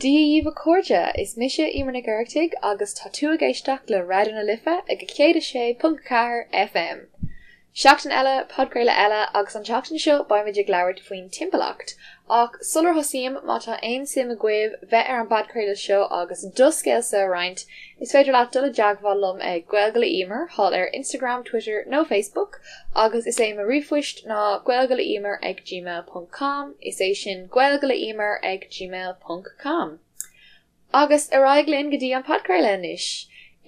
Dia dhaoibh a chairde, is mise Emer Nic Oireachtaigh agus tá tú ag éisteacht le Raidió na Life ag 106.4 FM. Seachtain eile, podchraoladh eile agus an tseachtain seo beimid ag labhairt faoin timpeallacht. Ach sular thosaím, má tá aon suim agaibh bheith ar an bpodchraoladh seo agus do scéalsa a roinnt, is féidir leat dul i dteagmháil liom ag Gaeilge le Emer thall ar Instagram, Twitter nó Facebook agus is é mo ríomhphoist ná gaeilgeleemer ag gmail ponc com, is é sin gaeilgeleemer ag gmail ponc com. Agus ar aghaidh linn go dtí an podchraoladh anois!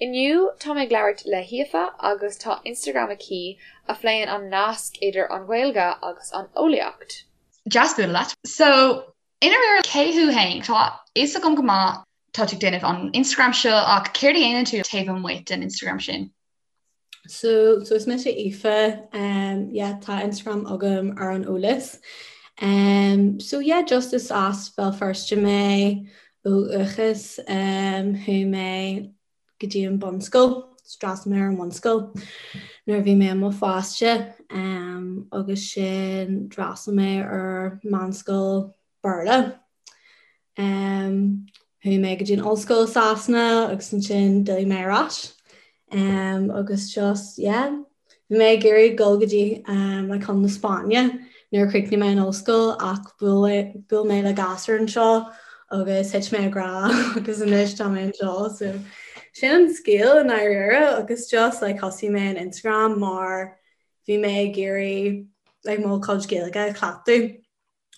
Inniu tá mé ag labhairt le hAoife agus tá Instagram aici a phléann an nasc idir an Ghaeilge agus an eolaíocht. Deas bualadh leat. So, i ndáiríre, cé thú féin? Tá a fhios agam go maith tá tú ag déanamh an Instagram seo ach céard a dhéanann tú taobh amuigh den Instagram sin? So, so is mise Aoife, um, yeah, tá Instagram agam ar an eolas. Um, so yeah, just is as Béal Feirste mé ó dhúchas, um, chuaigh mé go dtí an bunscoil, d'fhreastail mé ar an bhunscoil nuair a bhí mé i mo pháiste, um, agus sin d'fhreastail mé ar meánscoil Béarla. Um, chuaigh mé go dtí an ollscoil i Sasana agus ansin d'fhill mé ar ais. Um, agus just, yeah, bhí mé ag iarraidh dul go dtí um, like, chun na Spáinne nuair a chríochnaigh mé an ollscoil ach bhuail mé le gasúr anseo agus thit mé i ngrá agus anois tá mé anseo. So, sin an scéal i ndáiríre agus just like, thosaigh mé an Instagram mar bhí mé ag iarraidh like, mo chuid Gaeilge a chleachtadh.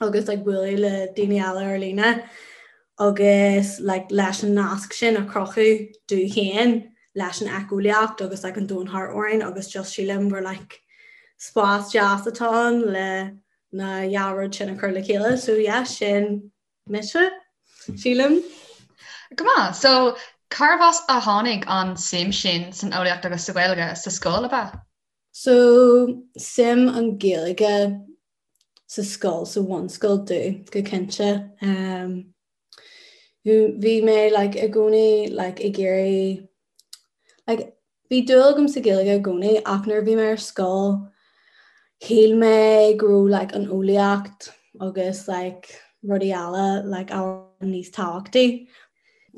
agus like bualadh le daoine eile ar líne agus like leis an nasc sin a chruthú domh féin leis an éiceolaíocht agus like an domhan thart orainn agus just sílim gur like spás deas atá ann le na dhá rud sin a chur le chéile so yeah sin mise sílim. Go maith, so carbh as a tháinig an suim sin san eolaíocht agus sa Ghaeilge sa scoil ab ea? So suim an Ghaeilge sa scoil, sa bhunscoil domh, go cinnte. Bhí mé like i gcónaí like ag iarraidh like bhí dúil agam sa Ghaeilge i gcónaí ach nuair a bhí mé ar scoil shíl mé go raibh like an eolaíocht agus like rudaí eile like ábhar níos tábhachtaí.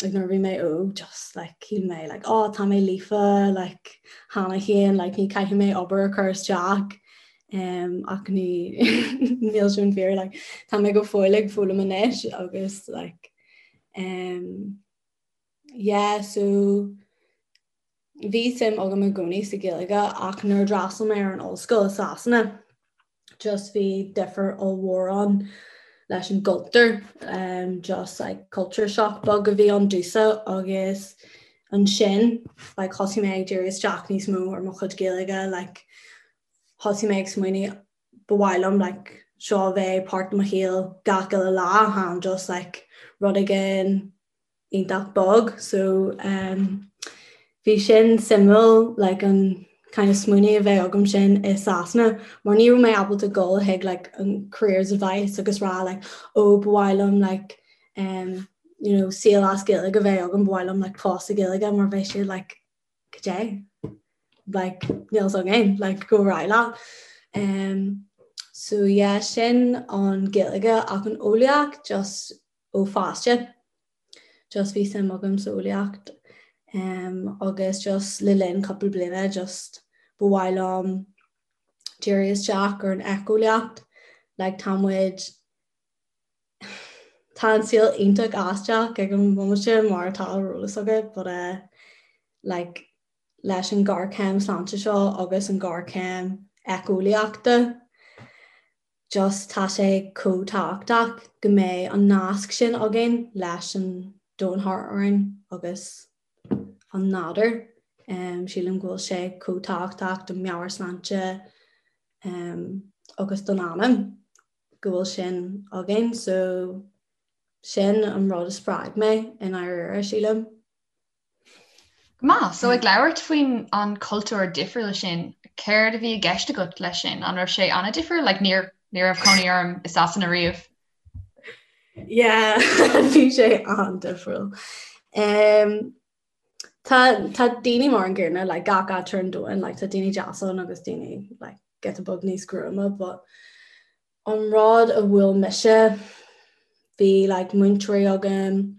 Like nuair a bhí mé óg just like shíl mé like oh tá mé líofa like cheana féin like ní caithfidh mé obair a chur isteach um, ach ní níl sin fíor like tá mé go fóill ag foghlaim anois agus like um, yeah so Bhí suim agam i gcónaí sa Ghaeilge ach nuair a d'fhreastail mé ar an ollscoil i Sasana just bhí difear ollmhór ann leis an gcultúr, just like culture shock beag a bhí ann domhsa agus ansin like thosaigh mé ag díriú isteach níos mó ar mo chuid Gaeilge like thosaigh mé ag smaoineamh ba mhaith liom like seo a bheith páirt de mo shaol gach uile lá chan just like rud éigin iontach bog so um, bhí sin suimiúil like, an kind of smaoineamh a bheith agam sin i Sasana mar ní raibh mé ábalta dul chuig like, an careers advice agus rá like, oh, ba mhaith liom like, um, you know, saol as Gaeilge a bheith agam ba mhaith liom like, post i Gaeilge mar bheadh siad like, cad é like, níl a fhios againn like, go raibh leat. Um, so yeah, sin an Gaeilge ach an eolaíocht just ó pháiste. Just bhí suim agam sa eolaíocht um, agus just le linn cúpla bliana just ba mhaith liom díriú isteach ar an éiceolaíocht. Like tá muid tá an saol iontach aisteach ag an bhomaite mar atá ar eolas agat, but uh, like leis an ghéarchéim sláinte seo agus an ghéarchéim éiceolaíochta Just tá sé chomh tábhachtach go mbeidh an nasc sin againn leis an domhan thart orainn agus an nádúr. Sílim go bhfuil sé chomh tábhachtach don meabhairshláinte agus don anam go bhfuil sin againn. So sin an rud a spreag mé i ndáiríre, sílim. Go maith. So ag labhairt faoin an cultúr difriúil sin, céard a bhí i gceist agat leis sin? An raibh sé an-difriúil? Like níor ní raibh cónaí orm i Sasana riamh. Yeah, bhí sé an-difriúil. Um, tá tá daoine mar an gcéanna like gach áit ar an domhan, like tá daoine deas ann agus daoine like giota beag níos gruama, but an rud a bhuail mise bhí like múinteoirí agam.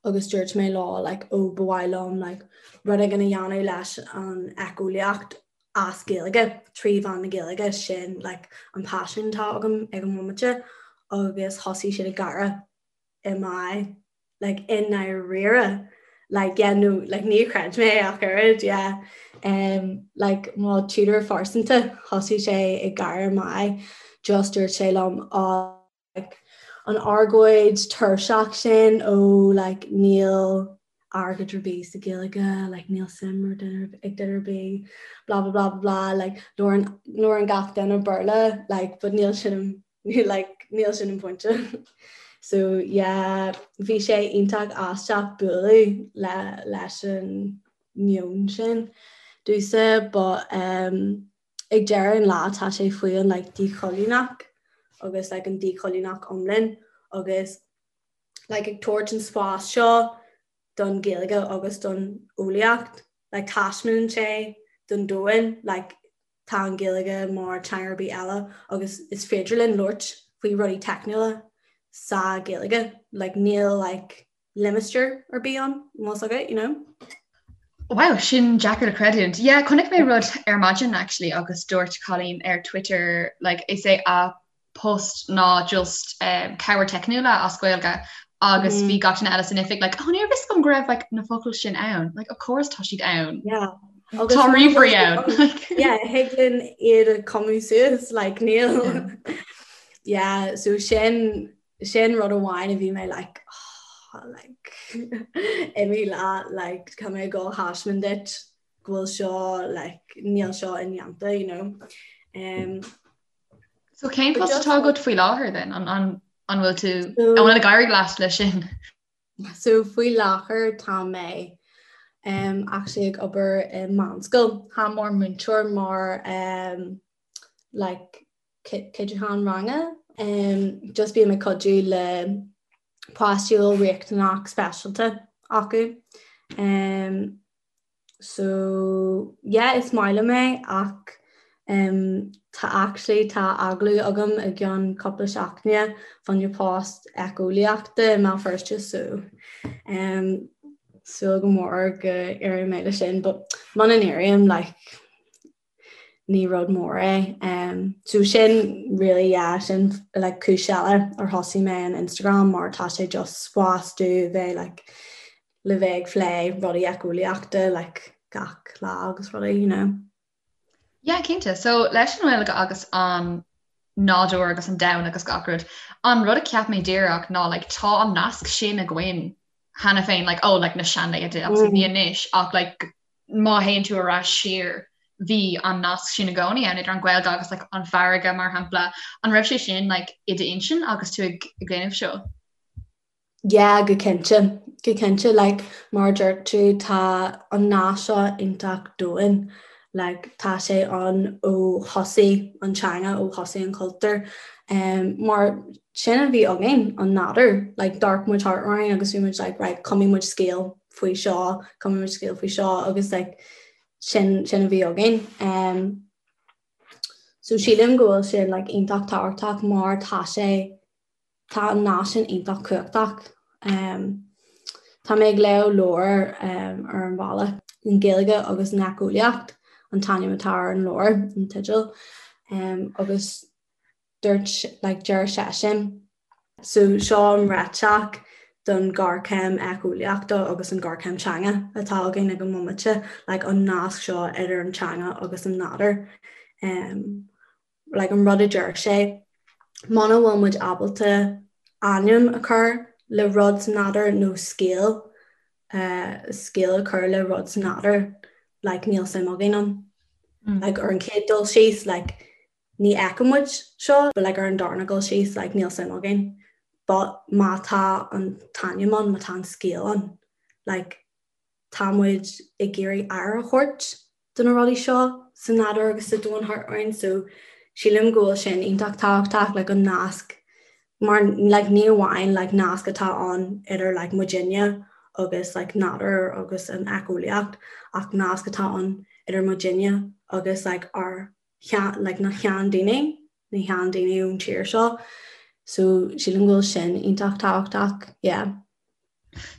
agus dúirt mé leo like ó ba mhaith liom like rud éigin a dhéanamh leis an éiceolaíocht as Gaeilge, trí mheán na Gaeilge, sin like an paisean atá agam ag an bhomaite agus thosaigh siad ag gáire i m'aghaidh like i ndáiríre like yeah no like níor chreid mé ach oiread yeah um like mo tutor phearsanta thosaigh sé ag gáire i m'aghaidh just dúirt sé liom oh like an argóint tuirseach sin ó like níl airgead ar bith sa Ghaeilge, like níl suim ar duine ag duine ar bith, blah blah blah blah blah, like labhrann labhrann gach duine Béarla, like but níl sin like níl sin an pointe. So yeah, bhí sé iontach aisteach bualadh le leis an meon sin domhsa but um, ag deireadh an lá tá sé faoi an like díchoilíneach agus like an díchoilíneach iomlán agus like ag tabhairt an spás seo don Ghaeilge agus don eolaíocht like taispeánann sé don domhan like tá an Ghaeilge mar teanga ar bith eile agus is féidir linn labhairt faoi rudaí teicniúla sa Ghaeilge like níl like limistéar ar bith ann, más agat, you know. Wow, sin deacair le creidiúint. Yeah, chonaic mé rud ar maidin actually agus dúirt cailín ar Twitter like, is é a post ná just um, cabhair teicniúla as Gaeilge agus mm. bhí gach duine eile san oifig like, oh, níorbh fhios agam go raibh like, na focail sin ann. Like, of course tá siad ann. Yeah. Tá ríomhairí ann. Yeah, thig linn iad a chumadh suas, like, níl. Yeah, so sin Sin rud amháin a bhí mé like oh, like imigh leat like tá mé ag dul a thaispeáint duit go bhfuil seo like níl seo indéanta you know. Um, so cén post atá agat faoi láthair then an an an bhfuil tú an bhfuil ag éirí leat leis sin? So faoi láthair tá mé um, actually ag obair i meánscoil Tá mar múinteoir mar um, like cuidiúchán ranga. Just bím ag cuidiú le páistí a bhfuil riachtanach speisialta acu. So yeah is maith liom é ach tá actually tá agallamh agam i gceann cúpla seachtaine fá choinne post éiceolaíochta i mBéal Feirste so súil go mór go n-éireoidh mé leis sin but muna n-éirím like ní rud mór é. So sin really yeah sin like cúis eile ar thosaigh mé an Instagram mar tá sé just spás domh bheith like le bheith ag plé rudaí éiceolaíochta like gach lá agus rudaí you know. Yeah cinnte. So leis an nGaeilge agus an nádúr agus an domhan agus gach rud, an rud a cheap mé díreach ná like tá an nasc sin againn cheana féin like oh like na seanlaethanta obviously ní anois ach like má théann tú ar ais siar bhí an nasc sin i gcónaí ann idir an Ghaeilge agus like an farraige mar shampla. An raibh sé sin like i d'intinn agus tú ag déanamh seo? Yeah, go cinnte. Go cinnte like mar a dúirt tú tá an nasc seo iontach domhain. Like tá sé ann ó thosaigh an teanga, ó thosaigh an cultúr. Um, mar sin a bhí againn, an nádúr. Like d'amharc muid thart orainn agus bhí muid like right, cumfaidh muid scéal faoi seo, cumfaidh muid scéal faoi seo agus like sin sin a bhí againn. Um, so sílim go bhfuil sin like iontach tábhachtach mar tá sé tá an nasc sin iontach cumhachtach. Um, tá mé ag léamh leabhar um, ar an bhealach an Ghaeilge agus an Éiceolaíocht an t-ainm atá ar an leabhar an teideal um, agus dúirt like deir seisean. So seo an réiteach don ghéarchéim éiceolaíochta agus an ghéarchéim teanga atá againn ag an mbomaite, like an nasc seo idir an teanga agus an nádúr. Um, like an rud a deir sé, muna bhfuil muid ábalta ainm a chur le rud sa nádúr nó scéal, uh, scéal a chur le rud sa nádúr, like níl suim againn ann. Mm. Like ar an chéad dul síos, like ní fheiceann muid seo, but like ar an darna dul síos, like níl suim againn. But má tá an t-ainm ann, má tá an scéal ann, like tá muid ag iarraidh aire a thabhairt do na rudaí seo sa nádúr agus sa domhan thart orainn, so sílim go bhfuil sin iontach tábhachtach, like an nasc mar like ní amháin like nasc atá ann idir like muidinne agus like nádúr agus an éiceolaíocht ach nasc atá ann idir muidinne agus like ár like na sheandaoine, na sheandaoine ón tír seo. So sílim go bhfuil sin iontach tábhachtach, yeah.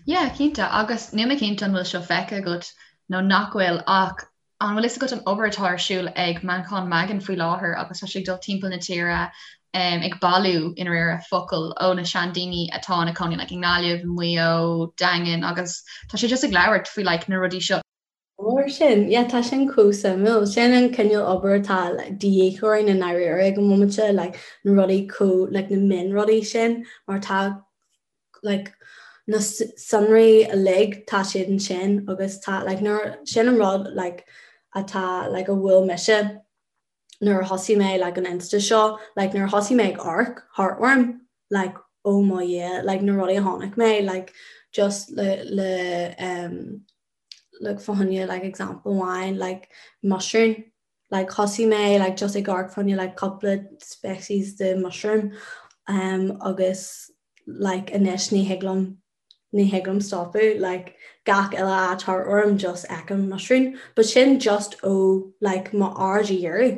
Yeah, cinnte, agus níl mé cinnte an bhfuil seo feicthe agat nó nach bhfuil ach an bhfuil fhios agat an obair atá ar siúl ag Manchán Magan faoi láthair agus tá sé ag dul timpeall na tíre um, ag bailiú i ndáiríre focail ó na seandaoine atá ina cónaí like, i nGaillimh, Maigh Eo, Daingean agus tá sé just ag labhairt faoi like, na rudaí seo. Mar sin, yeah, tá sin chomh suimiúil. Sin an cineál obair atá like, de dhíth orainn i ndáiríre ag an bhomaite, like, na rudaí chomh, like, na mionrudaí sin, mar tá like, na sonraí uilig, tá siad ansin agus tá, like, nuair, sin an rud, like, atá, like, a bhuail mise nuair a thosaigh mé, like, an Insta seo, like, nuair a thosaigh mé ag amharc thart orm, like, oh mo Dhia, like, na rudaí a chonaic mé, like, just le, le, um, like fá choinne like example amháin like mushroom like thosaigh mé like just ag amharc fá choinne like cúpla species de mushroom um agus like anois ní thig liom ní thig liom stopadh like gach uile áit thart orm just feicim mushroom but sin just ó like m'aird a dhíriú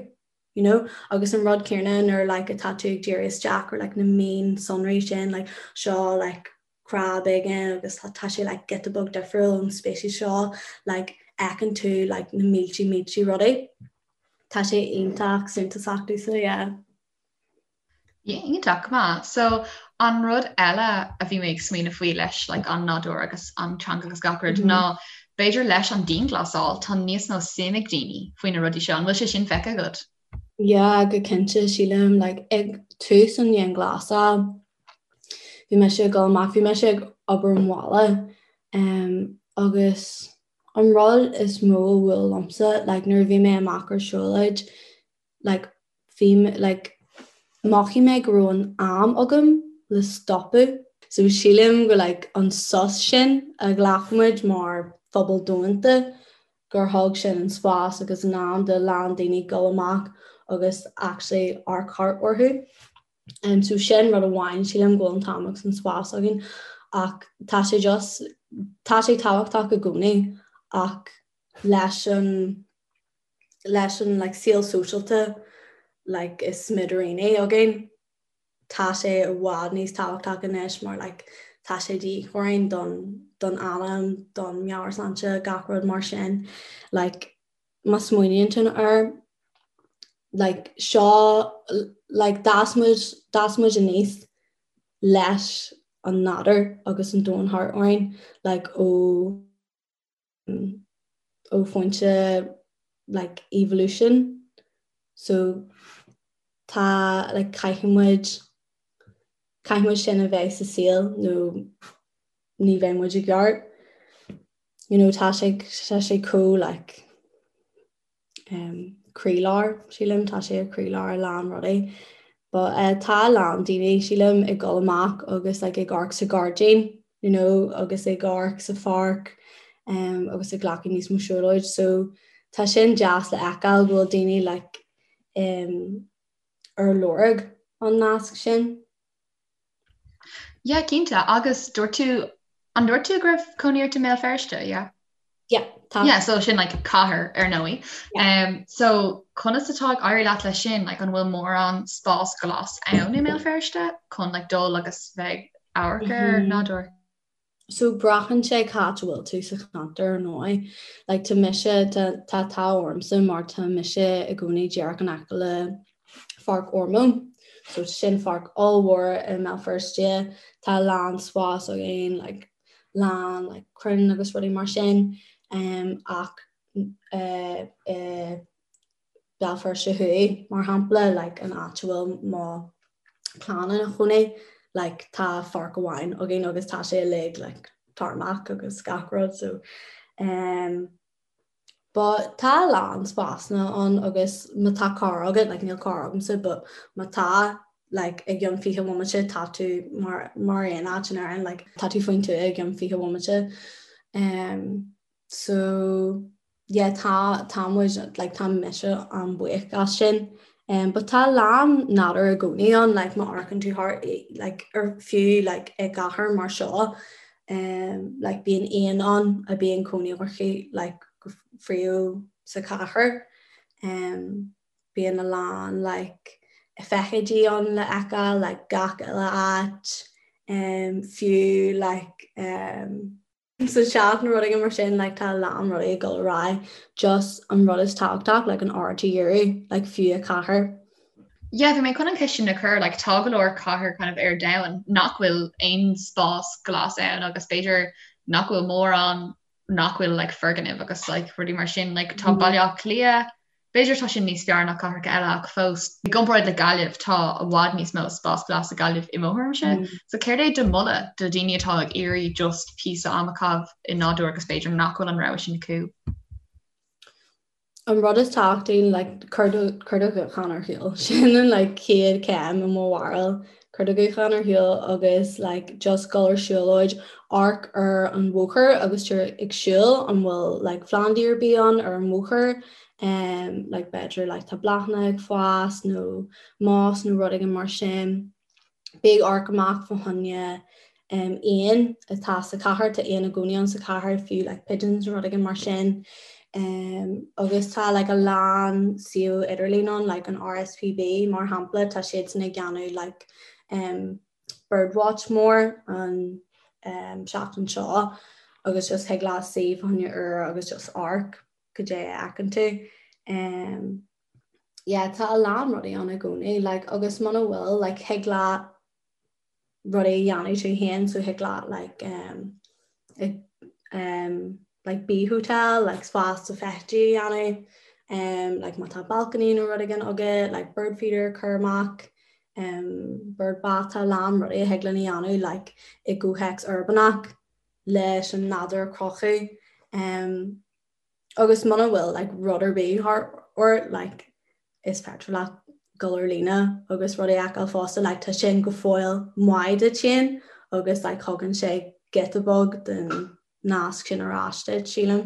you know agus an rud céanna nuair like atá tú ag díriú isteach ar like na mionsonraí sin like seo like crab éigin agus tá sé like giota beag difriúil ón species seo like fheiceann tú like na mílte mílte rudaí. Tá sé iontach suntasach domhsa, yeah. Yeah, iontach, go maith. So an rud eile a bhí mé ag smaoineamh faoi leis like an nádúr agus an teanga agus gach rud mm -hmm. ná b'fhéidir leis an dianghlasáil tá níos mó suim ag daoine faoi na rudaí seo, an bhfuil sé sin feicthe agat? Yeah, go cinnte sílim like ag tús an dianghlasáil bhí mise ag dul amach, bhí mise ag obair ón bhaile um, agus an rud is mó a bhuail liomsa like nuair a bhí mé amach ar siúlóid like bhí like mhothaigh mé go raibh an am agam le stopadh. So sílim go like an sos sin a ghlac muid mar phobal domhanda gur thug sin an spás agus an am do a lán daoine dul amach agus actually amharc thart orthu. Um, so sin rud amháin sílim go bhfuil an t-am agus an spás againn ach tá sé just tá sé tábhachtach i gcónaí ach leis an leis an like saol sóisialta like is smidiríní againn tá sé i bhfad níos tábhachtach anois mar like tá sé de dhíth orainn don don anam, don meabhairshláinte, gach rud mar sin like má smaoiníonn tú air like seo like d'fhás muid d'fhás muid aníos leis an nádúr agus an domhan thart orainn like ó ó phointe like evolution so tá like caithfidh muid caithfidh muid sin a bheith sa saol nó ní bheidh muid i gceart you know tá sé tá sé chomh like um, croílár sílim tá sé ar croílár a lán rudaí. But uh, tá a lán daoine sílim ag dul amach agus like, ag amharc sa ghairdín you know, agus ag amharc sa pháirc um, agus ag glacadh níos mó siúlóid. So tá sin deas le feiceáil go bhfuil daoine like, um, ar lorg an nasc sin. Yeah, cinnte. Agus dúirt tú, an dúirt tú go raibh cónaí ort i mBéal Feirste, yeah? Yeah, tá. Yeah, so sin like cathair ar ndóigh. Yeah. Um, so conas atá ag éirí leat leis sin, like an bhfuil mórán spás glas ann i mBéal Feirste chun like dul agus bheith ag amharc ar mm -hmm. nádúr? So braitheann sé cá háit a bhfuil tú sa cheantar ar ndóigh. Like tá mise, tá tá an t-ádh ormsa mar tá mise i gcónaí díreach in aice le Pháirc Ormeau. So sin pháirc ollmhór i mBéal Feirste. Tá a lán spás againn, like lán like crainn agus rudaí mar sin. Um, ach uh, uh, Béal Feirste Thuaidh, mar shampla, like an áit a bhfuil mo chlann ina chónaí, like tá pháirc amháin againn agus tá sé uilig like tarmac agus gach rud so um, but tá a lán spásanna ann agus má tá carr agat, like níl carr agamsa but má tá like i gcionn 20 bhomaite tá tú mar mar aon áit in Éirinn like tá tú faoin tuath i gcionn 20 bhomaite um, So yeah tá tá muid like tá mise an-bhuíoch as sin. Um, but tá a lán nádúr i gcónaí ann like má amharcann tú thart like ar fiú like i gcathair mar seo um, like bíonn éin ann a bíonn cónaí orthu like go príomha sa chathair. Um, bíonn a lán like feithidí ann le feiceáil like gach uile áit. Um, fiú like um, sa teach nó rud éigin mar sin like tá a lán rudaí ag dul ar aghaidh just an rud is tábhachtach like an aird a dhíriú like fiú i cathair. Yeah, bhí mé chun an cheist sin a chur, like tá go leor cathair kind of ar domhan nach bhfuil aon spás glas ann agus b'fhéidir nach bhfuil mórán nach bhfuil like foirgnimh agus like rudaí mar sin, like tá Baile Átha Cliath, B'fhéidir tá sin níos fearr ná cathracha eile ach fós, i gcomparáid le Gaillimh, tá i bhfad níos mó spás glas i Gaillimh i mo thuairimse. So céard é do mholadh do dhaoine atá ag iarraidh just píosa ama a chaitheamh i nádúr agus b'fhéidir nach bhfuil an rogha sin acu? An rud is tábhachtaí, like, cuir do, cuir do ghuthán ar shiúl. Sin an like chéad chéim i mo bharúil. Cuir do ghuthán ar shiúl agus like just dul ar siúlóid, amharc ar an bhóthar agus tú ag siúl an bhfuil like plandaí ar bith ann ar an bhóthar um like b'fhéidir like tá bláthanna ag fás nó moss nó rud éigin mar sin. Bí ag amharc amach fá choinne um éin atá sa chathair, tá éin i gcónaí ann sa chathair fiú like pigeons nó rud éigin mar sin. Um agus tá like a lán suíomh idirlín ann like an RSPB mar shampla tá siadsan ag déanamh like um birdwatch mór an um seachtain seo agus just thig leat suí fá choinne uair agus just amharc cad é a fheiceann tú. Um yeah tá a lán rudaí ann i gcónaí like agus muna bhfuil like thig leat rudaí a dhéanamh tú féin so thig leat like um, um, like bee hotel like spás do feithidí a dhéanamh um, like má tá balcony nó rud éigin agat like bird feeder a chur amach um, bird bath tá a lán rudaí a thig linn a dhéanamh like i gcomhthéacs uirbeach leis an nádúr a chruthú um, Agus muna bhfuil like rud ar bith thart ort like is féidir leat dul ar líne agus rudaí a fheiceáil fosta like tá sin go fóill maith duit féin agus like thugann sé giota beag den nasc sin ar ais duit, sílim.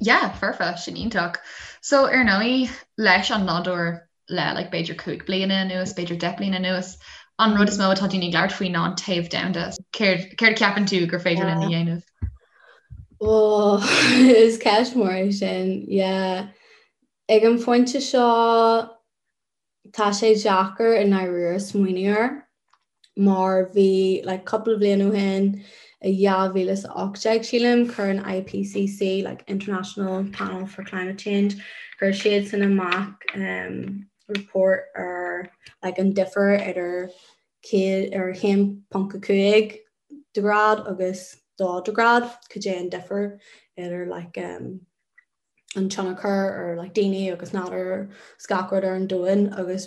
Yeah, foirfe, sin iontach. So ar ndóigh leis an nádúr le like b'fhéidir 5 bliana anuas, b'fhéidir 10 bliana anuas, an rud is mó atá daoine ag labhairt faoi ná an téamh domhanda. Céard céard a cheapann tú gur féidir linn a dhéanamh? Oh, is ceist mhór é sin, yeah. Ag an phointe seo tá sé deacair i ndáiríre smaoineamh air mar bhí like cúpla bliain ó shin i 2018 sílim chuir an IPCC like International Panel for Climate Change chuir siadsan amach um, report ar like an difear idir céad ar 1.5 de ghrád agus 2 de ghrád cad é an difear idir like um, an tionchar ar like daoine agus nádúr is gach rud ar an domhan agus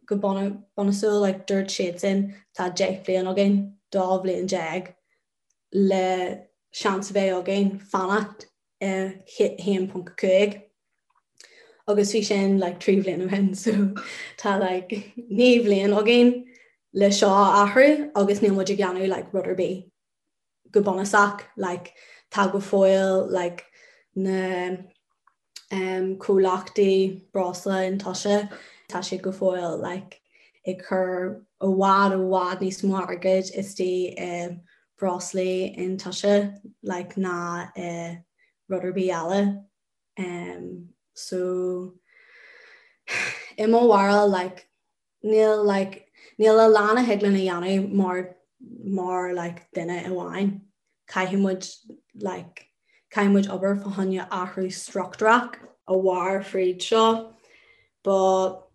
go bunúsach like dúirt siadsan tá 10 bliain againn, 12 bhliain le seans a bheith againn fanacht i 1.5 agus bhí sin like 3 bhliain ó shin so tá like 9 bhliain againn le seo a athrú agus níl muid ag déanamh like rud ar bith. go bunúsach like tá go fóill like na um comhlachtaí breosla iontaise tá siad go fóill like ag cur i bhfad i bhfad níos mó airgid istigh i breoslaí iontaise like ná i rud ar bith eile um so i mo bharúil like Níl like níl a lán a thig linn a dhéanamh mar mar like duine amháin. Caithfidh muid like caithfidh muid obair fá choinne athrú struchtúrach a mhair fríd seo. But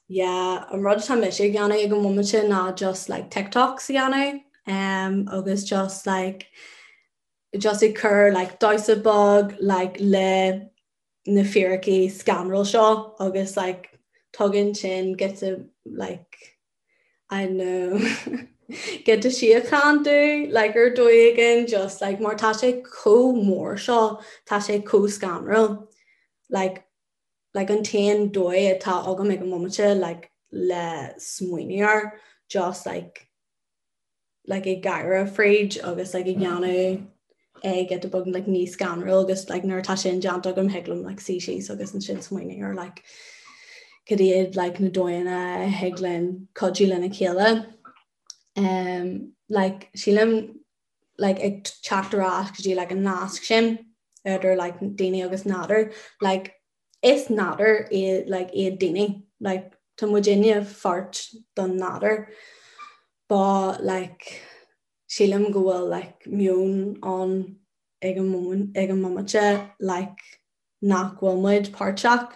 yeah, an rud atá mise ag déanamh ag an bhomaite ná just like TikToks a dhéanamh um, agus just like just ag cur like damhsa beag like le na fíricí scanrúil seo agus like tugann sin giota like I don't know giota síocháin domh like ar dóigh éigin just like mar tá sé chomh mór seo tá sé chomh scanrúil like like an t-aon dóigh atá agam ag an mbomaite like le smaoineamh air just like like ag gáire fríd agus like ag déanamh é giota beag like níos scanrúil agus like nuair atá sin déanta agam thig liom like suí síos agus ansin smaoineamh ar like cad iad like na dóigheanna a thig linn cuidiú lena chéile. Um, like sílim like ag teacht ar ais go dtí like an nasc sin idir like daoine agus nádúr like is nádúr iad like iad daoine like tá muidinne pháirt don nádúr. But like sílim go bhfuil like meon ann ag an moment ag an mbomaite like nach bhfuil muid páirteach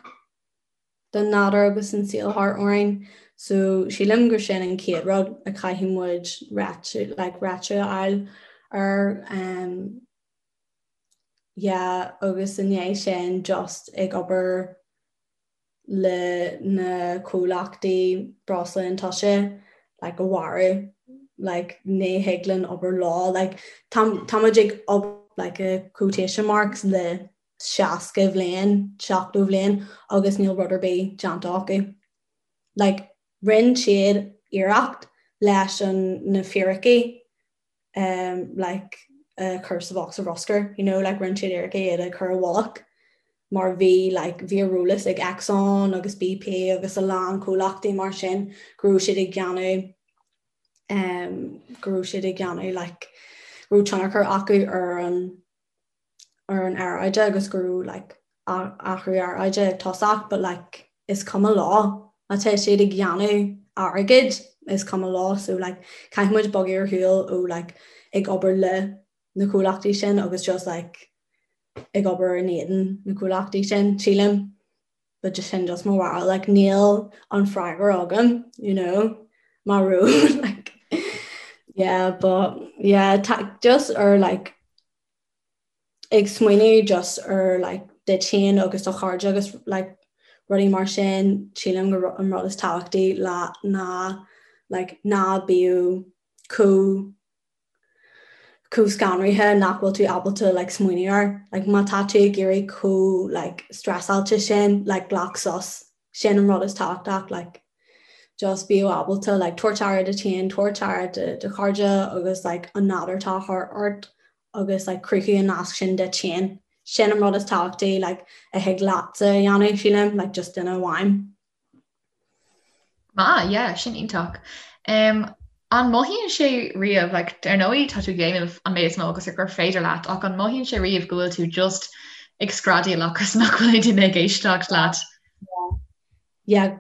den nádúr agus an saol thart orainn so sílim gur sin an chéad rud a chaithfidh muid réiteach like réiteach a fháil air um yeah agus i ndiaidh sin just ag obair le na comhlachtaí breosla iontaise like a mharú like ní thig linn obair leo like tá tá muid ag obair like i quotation marks le 60 bhliain 70 bhliain agus níl rud ar bith déanta acu like rinne siad iarracht leis an na fíricí um like a chur sa bhosca bruscair you know like rinne siad iarracht iad a chur i bhfolach mar bhí like bhí ar eolas ag Exxon agus BP agus a lán comhlachtaí mar sin go raibh siad ag déanamh um go raibh siad ag déanamh like go raibh tionchar acu ar an ar an aeráide agus go raibh like athrú aeráide ag tosach but like is cuma leo má tá siad ag déanamh airgid is cuma leo so like caithfidh muid bogadh ar shiúl ó like ag obair le na comhlachtaí sin agus just like ag obair in éadan na comhlachtaí sin sílim but just sin just mo bharúil like níl an freagra agam you know mar rud like yeah but yeah just ar like ag smaoineamh just ar like duit féin agus do chairde agus like rudaí mar sin sílim gur an rud is tábhachtaí le ná like ná bíodh chomh chomh scanraithe nach bhfuil tú ábalta like smaoineamh air like má tá tú ag éirí chomh like stressálta sin like glac sos sin an rud is tábhachtach like just bíodh ábalta like tabhairt aire duit féin, tabhairt aire do do chairde agus like an nádúr atá thart ort agus like cruthú an nasc sin duit féin. Sin an rud is tábhachtaí like a thig leatsa a dhéanamh sílim like just duine amháin. Maith, yeah, sin iontach. Um, an mothaíonn sé riamh, like, ar ndóigh tá tú ag déanamh an méid is mó agus gur féidir leat, ach an mothaíonn sé riamh go bhfuil tú just ag screadaíl agus nach bhfuil aon duine ag éisteacht leat? Yeah,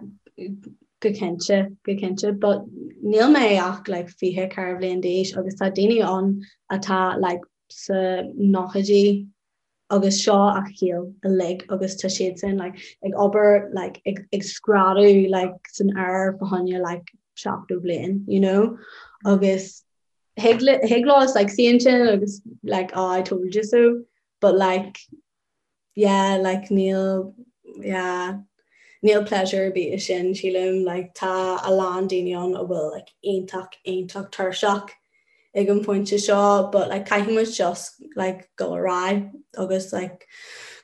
go cinnte, go cinnte, but níl mé ach like 24 bhliain d'aois agus tá daoine ann atá like sa nóchaidí agus seo a shaol uilig agus tá siad sin like ag obair like ag ag screadadh like san aer fá choinne like 70 bliain, you know, agus thig thig leo like suí ansin agus like oh I told you so but like yeah like níl yeah níl pleasure ar bith i sin sílim like tá a lán daoine ann a bhfuil like iontach iontach tuirseach ag an phointe seo but like caithfidh muid just like dul ar aghaidh agus like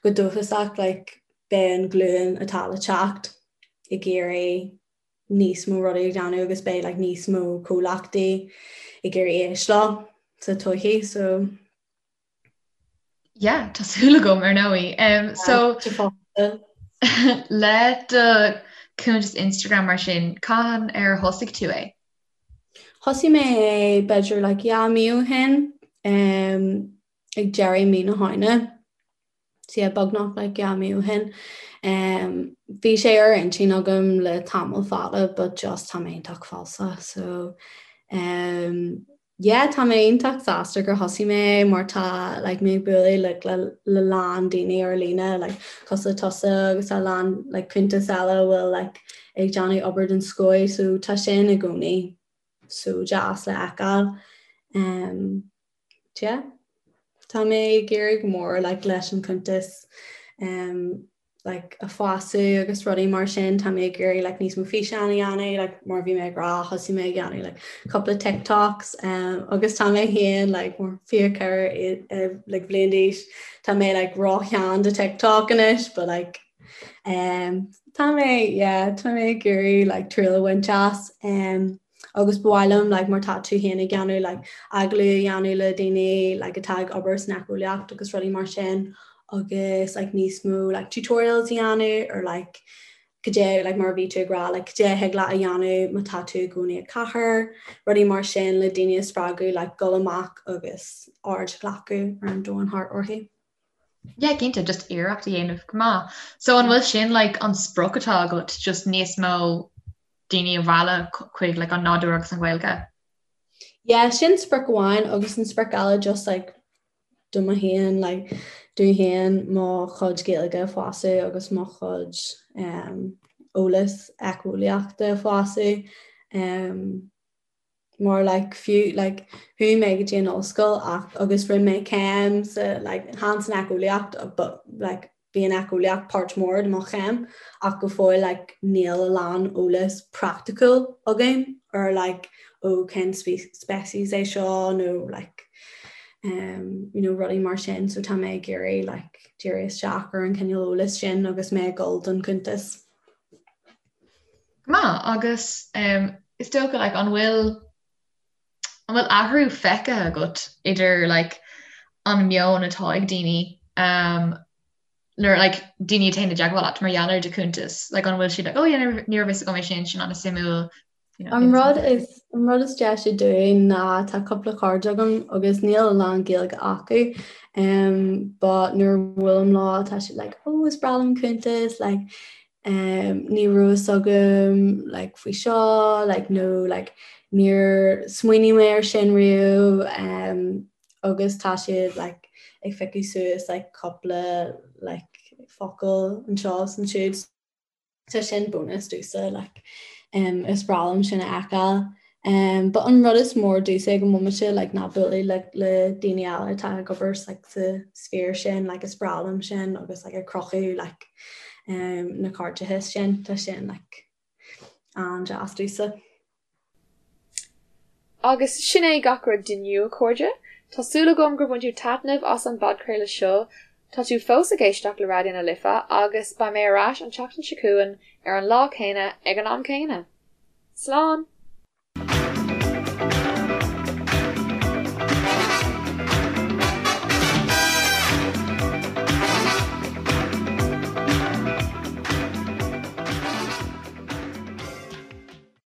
go dóchasach like beidh an glúin atá le teacht ag iarraidh níos mó rudaí a dhéanamh agus beidh like níos mó comhlachtaí ag iarraidh éisteacht leo sa todhchaí so Yeah, tá súil agam ar ndóigh. Um, so le do cuntas Instagram mar sin, cathain ar thosaigh tú é? Thosaigh mé é b'fhéidir like dhá mí ó shin um, ag deireadh mí na Samhna. So yeah, beagnach like dhá mí ó shin. Um, bhí sé ar intinn agam le tamall fada, but just tá mé iontach falsa, so um, Yeah tá mé iontach sásta gur thosaigh mé mar tá like mé ag bualadh like le le lán daoine ar líne like cosúil le tusa agus a lán like cuntas eile a bhfuil like ag déanamh obair den scoth so tá sin i gcónaí so deas le fheiceáil. Um, yeah. Tá mé ag iarraidh go mór like leis an cuntas um, like a fású agus rudaí mar sin tá mé ag iarraidh like níos mó físeán a dhéanamh like mar bhí mé ag rá thosaigh mé ag dhéanamh like cúpla TikToks um, agus tá mé féin like mar 24 uh, like bhliain d'aois tá mé like ró-shean do TikTok anois but like um, tá mé yeah, tá mé ag iarraidh like triail a bhaint as um, agus ba mhaith liom like mar tá tú féin ag déanamh like agallamh a dhéanamh le daoine like atá ag obair san éiceolaíocht agus rudaí mar sin agus like níos mó like tutorials a dhéanamh ar like cad é like mar a bhí tú ag rá like cad é a thig leat a dhéanamh má tá tú i gcónaí i gcathair, rudaí mar sin le daoine a spreagadh like dul amach agus aird a ghlacadh ar an domhan thart orthu. Yeah, cinnte, just iarracht a dhéanamh go maith. So an bhfuil sin like an sprioc atá agat just níos mó daoine a mhealladh chuig like an nádúr agus an Ghaeilge? Yeah, sin sprioc amháin agus an sprioc eile just like do mo fhéin like dom fhéin mo chuid Gaeilge a fheabhsú agus mo chuid um, eolas éiceolaíochta a fheabhsú um, mar like fiú like chuaigh mé go dtí an ollscoil ach agus rinne mé céim sa like chan san éiceolaíocht but like bhí an éiceolaíocht páirt mór de mo chéim ach go fóill like níl a lán eolas praiticiúil agam ar like ó cén species é seo nó like um, you know, rudaí mar sin so tá mé ag iarraidh like díriú isteach ar an cineál eolas sin agus mé ag dul don cuntas. Go maith, agus is dócha like an bhfuil an bhfuil athrú feicthe agat idir like an meon atá ag daoine um, nuair like daoine a théann i dteagmháil leat mar gheall ar do chuntas like an bhfuil siad like oh yeah ní raibh fhios agam é sin sin an-suimiúil you know, An rud is an rud is deise dúinn ná tá cúpla cairde agam agus níl a lán Gaeilge acu um, but nuair a bhuailim leo tá siad like oh is breá liom cuntas like um, ní raibh fhios agam like, faoi seo like, nó like, níor smaoinigh mé ar sin riamh um, agus tá siad like, ag piocadh suas like, cúpla like, focal anseo is ansiúd. Tá sin bonus domhsa like, um, is breá liom sin a fheiceáil. Um, but an rud is mór domhsa ag an mbomaite like, ná bualadh like, le daoine eile atá ag obair like, sa sphere sin like, is breá liom sin agus like, ag cruthú like, um, na cairdeachais sin tá sin like, an-deas domhsa. Agus sin é gach rud d'inniu, a chairde. Tá súil agam gur bhain tú taitneamh as an bpodchraoladh seo. Tá tú fós ag éisteacht le Raidió na Life agus beidh mé ar ais an tseachtain seo chugainn ar an lá céanna ag an am céanna. Slán!